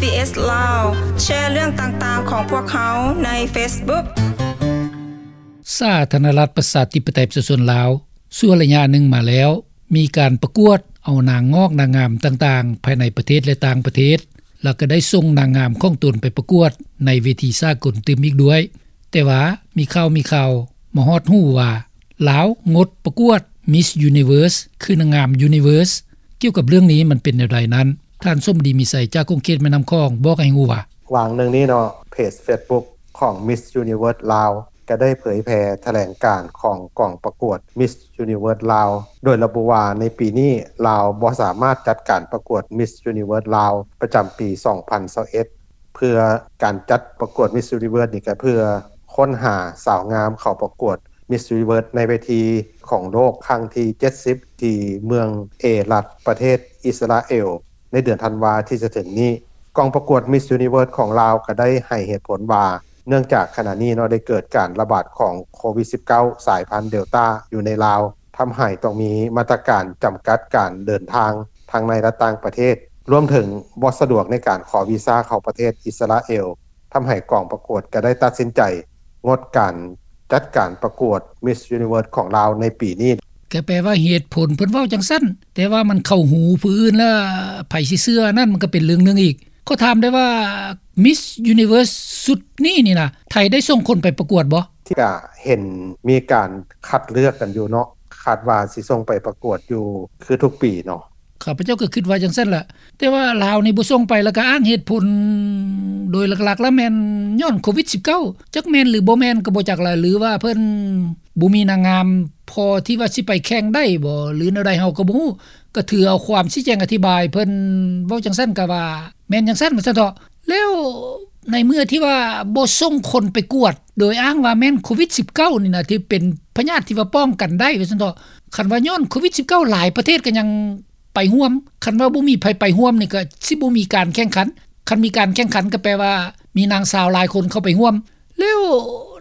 ບີເອສ ລາວ ແຊເລື່ອງຕ່າງໆຂອງພວກເຮົາໃນເຟສບຸກ. ສາທາລະນະລັດ ປະຊາທິປະໄຕ ປະຊາຊົນລາວ ຊົ່ວໄລຍະໜຶ່ງມາແລ້ວ ມີການປະກວດເອົານາງງອກນາງງາມຕ່າງໆ ພາຍໃນປະເທດ ແລະ ຕ່າງປະເທດ ແລ້ວກໍໄດ້ສົ່ງນາງງາມຂອງຕົນໄປປະກວດໃນເວທີສາກົນຕື່ມອີກດ້ວຍ. ແຕ່ວ່າມີຂ່າວ ມີຂ່າວມາຮອດຫູວ່າ ລາວງົດປະກວດ Miss Universe ຄືນາງງາມ Universe. ກ່ຽວກັບເລື່ອງນີ້ມັນເປັນແນວໃດນັ້ນ, ທ່ານ ສົມດີ ມີໄຊ ຈາກຂົງເຂດແມ່ນ້ຳຂອງ ບອກໃຫ້ຮູ້ວ່າ: ຫວ່າງໜຶ່ງນີ້ເນາະ ເພຈເຟສບຸກຂອງ Miss Universe ລາວ ກໍໄດ້ເຜີຍແຜ່ຖະແຫຼງການຂອງກອງປະກວດ Miss Universe ລາວ ໂດຍລະບຸວ່າໃນປີນີ້ລາວບໍ່ສາມາດຈັດການປະກວດ Miss Universe ລາວ ປະຈຳປີສອງພັນຊາວເອັດ ເພື່ອການຈັດປະກວດ Miss Universe ນີ້ກໍເພື່ອຄົ້ນຫາສາວງາມເຂົ້າປະກວດ Miss Universe ໃນເວທີຂອງໂລກຄັ້ງທີເຈັດສິບ ທີ່ເມືອງເອຣັດ ປະເທດອິດສະຣາເອວ ໃນເດືອນທັນວາທີ່ຈະເຖິງນີ້. ກອງປະກວດ Miss Universe ຂອງລາວກໍໄດ້ໃຫ້ເຫດຜົນວ່າ ເນື່ອງຈາກຂະນະນີ້ເນາະ ໄດ້ເກີດການລະບາດຂອງໂຄວິດສິບເກົ້າ ສາຍພັນ Delta ຢູ່ໃນລາວ ທຳໃຫ້ຕ້ອງມີມາດຕະການຈຳກັດການເດີນທາງທັງໃນ ແລະ ຕ່າງປະເທດ, ລວມເຖິງບໍ່ສະດວກໃນການຂໍວີຊາເຂົ້າປະເທດອິດສະຣາເອວ, ທຳໃຫ້ກອງປະກວດກໍໄດ້ຕັດສິນໃຈງົດການຈັດການປະກວດ Miss Universe ຂອງລາວໃນປີນີ້. ກໍແປວ່າເຫດຜົນເພິ່ນເວົ້າຈັ່ງຊັ້ນ, ແຕ່ວ່າມັນເຂົ້າຫູຜູ້ອື່ນແລ້ວ ໃຜຊິເຊື່ອນັ້ນ ມັນກໍເປັນເລື່ອງໜຶ່ງອີກ. ຂໍຖາມໄດ້ວ່າ Miss Universe ຊຸດນີ້ນີ້ນະ ໄທໄດ້ສົ່ງຄົນໄປປະກວດບໍ່? ທີ່ກະເຫັນມີການຄັດເລືອກກັນຢູ່ເນາະ, ຄາດວ່າຊິສົ່ງໄປປະກວດຢູ່ຄືທຸກປີເນາະ. ຂ້າພະເຈົ້າກໍຄິດວ່າຈັ່ງຊັ້ນລະ, ແຕ່ວ່າລາວນີ້ບໍ່ສົ່ງໄປ ແລ້ວກໍອ້າງເຫດຜົນໂດຍຫຼັກໆແລ້ວແມ່ນຍ້ອນໂຄວິດສິບເກົ້າ ຈັກແມ່ນຫຼືບໍ່ແມ່ນກໍບໍ່ຈັກລະ ຫຼືວ່າເພິ່ນບໍ່ມີນາງງາມພໍທີ່ວ່າຊິໄປແຂ່ງໄດ້ບໍ່ ຫຼືແນວໃດເຮົາກໍບໍ່ຮູ້. ກໍຖືເອົາຄວາມຊີ້ແຈງອະທິບາຍເພິ່ນເວົ້າຈັ່ງຊັ້ນ ກໍວ່າແມ່ນຈັ່ງຊັ້ນວ່າຊັ້ນເຖາະ. ແລ້ວໃນເມື່ອທີ່ວ່າບໍ່ສົ່ງຄົນໄປກວດ ໂດຍອ້າງວ່າແມ່ນໂຄວິດສິບເກົ້ານີ້ນະ ທີ່ເປັນພະຍາດທີ່ວ່າປ້ອງກັນໄດ້ວ່າຊັ້ນເຖາະ, ຄັນວ່າຍ້ອນໂຄວິດສິບເກົ້າ ຫຼາຍປະເທດກໍຍັງໄປຮ່ວມ, ຄັນວ່າບໍ່ມີໃຜໄປຮ່ວມນີ້ ກໍຊິບໍ່ມີການແຂ່ງຂັນ, ຄັນມີການແຂ່ງຂັນກໍແປວ່າມີນາງສາວຫຼາຍຄົນເຂົ້າໄປຮ່ວມ. ແລ້ວ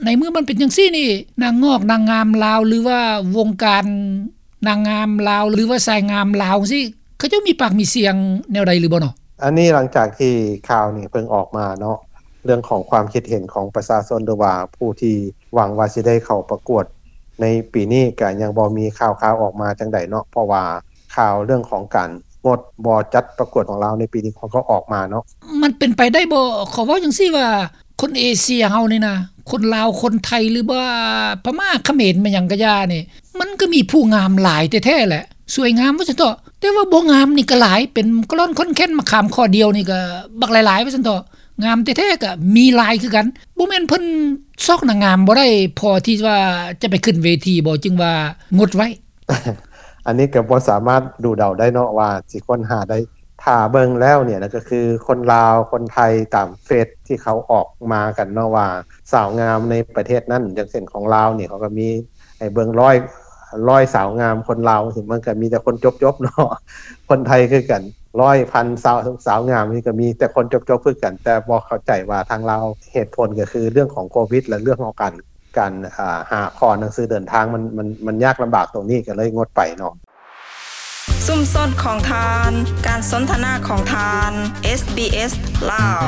ໃນເມື່ອມັນເປັນຈັ່ງຊີ້ນີ້ ນາງງອກນາງງາມລາວ ຫຼືວ່າວົງການນາງງາມລາວ ຫຼືວ່າສາຍງາມລາວຈັ່ງຊີ້ ເຂົາເຈົ້າມີປາກມີສຽງແນວໃດຫຼືບໍ່ເນາະ? ອັນນີ້ຫຼັງຈາກທີ່ຂ່າວນີ້ເພິ່ງອອກມາເນາະ, ເລື່ອງຂອງຄວາມຄິດເຫັນຂອງປະຊາຊົນ ຫຼືວ່າຜູ້ທີ່ຫວັງວ່າຊິໄດ້ເຂົ້າປະກວດໃນປີນີ້ ກະຍັງບໍ່ມີຂ່າວຄາວອອກມາຈັ່ງໃດເນາະ, ເພາະວ່າ ຂ່າວເລື່ອງຂອງການງົດບໍ່ຈັດປະກວດຂອງລາວໃນປີນີ້ ເຂົາກໍອອກມາເນາະ. ມັນເປັນໄປໄດ້ບໍ່? ຂໍເວົ້າຈັ່ງຊີ້ວ່າ ຄົນເອເຊຍເຮົານີ້ນະ ຄົນລາວ ຄົນໄທ ຫຼືວ່າພະມ້າ ຂະເໝນ ແມ່ນຫຍັງກະຢ່ານີ້ ມັນກໍມີຜູ້ງາມຫຼາຍແທ້ໆແຫຼະ, ສວຍງາມວ່າຊັ້ນເຖາະ, ແຕ່ວ່າບໍ່ງາມນີ້ກໍຫຼາຍ, ເປັນກະລ່ອນຂ້ອນແຄ້ນມະຂາມຂໍ້ດຽວນີ້ກໍບັກຫຼາຍໆວ່າຊັ້ນເຖາະ, ງາມແທ້ໆກໍມີຫຼາຍຄືກັນ. ບໍ່ແມ່ນເພິ່ນຊອກນາງງາມບໍ່ໄດ້ ພໍທີ່ວ່າຈະໄປຂຶ້ນເວທີບໍ່ ຈຶ່ງວ່າງົດໄວ້? ອັນນີ້ກໍບໍ່ສາມາດດູເດົາໄດ້ເນາະວ່າຊິຄົ້ນຫາໄດ້. ຖ້າເບິ່ງແລ້ວນີ້ນະ ກໍຄືຄົນລາວ ຄົນໄທ ຕາມເຟສທີ່ເຂົາອອກມາກັນເນາະ ວ່າສາວງາມໃນປະເທດນັ້ນ ຢ່າງເຊັ່ນຂອງລາວນີ້ ເຂົາກໍມີໃຫ້ເບິ່ງຮ້ອຍ ຮ້ອຍສາວງາມຄົນລາວ ມັນກໍມີແຕ່ຄົນຈົບໆເນາະ, ຄົນໄທຄືກັນ ຮ້ອຍ ພັນ ສາວ ສາວງາມນີ້ກໍມີແຕ່ຄົນຈົບໆຄືກັນ, ແຕ່ບໍ່ເຂົ້າໃຈວ່າທາງລາວ ເຫດຜົນກໍຄືເລື່ອງຂອງໂຄວິດ ແລະ ເລື່ອງຂອງການ ການ ອ່າ ຫາຂໍໜັງສືເດີນທາງ ມັນ ມັນ ມັນຍາກລຳບາກຕົງນີ້ ກໍເລີຍງົດໄປເນາະ. ຊຸມຊົນຂອງທ່ານ, ການສົນທະນາຂອງທ່ານ, ເອສບີເອສ ລາວ.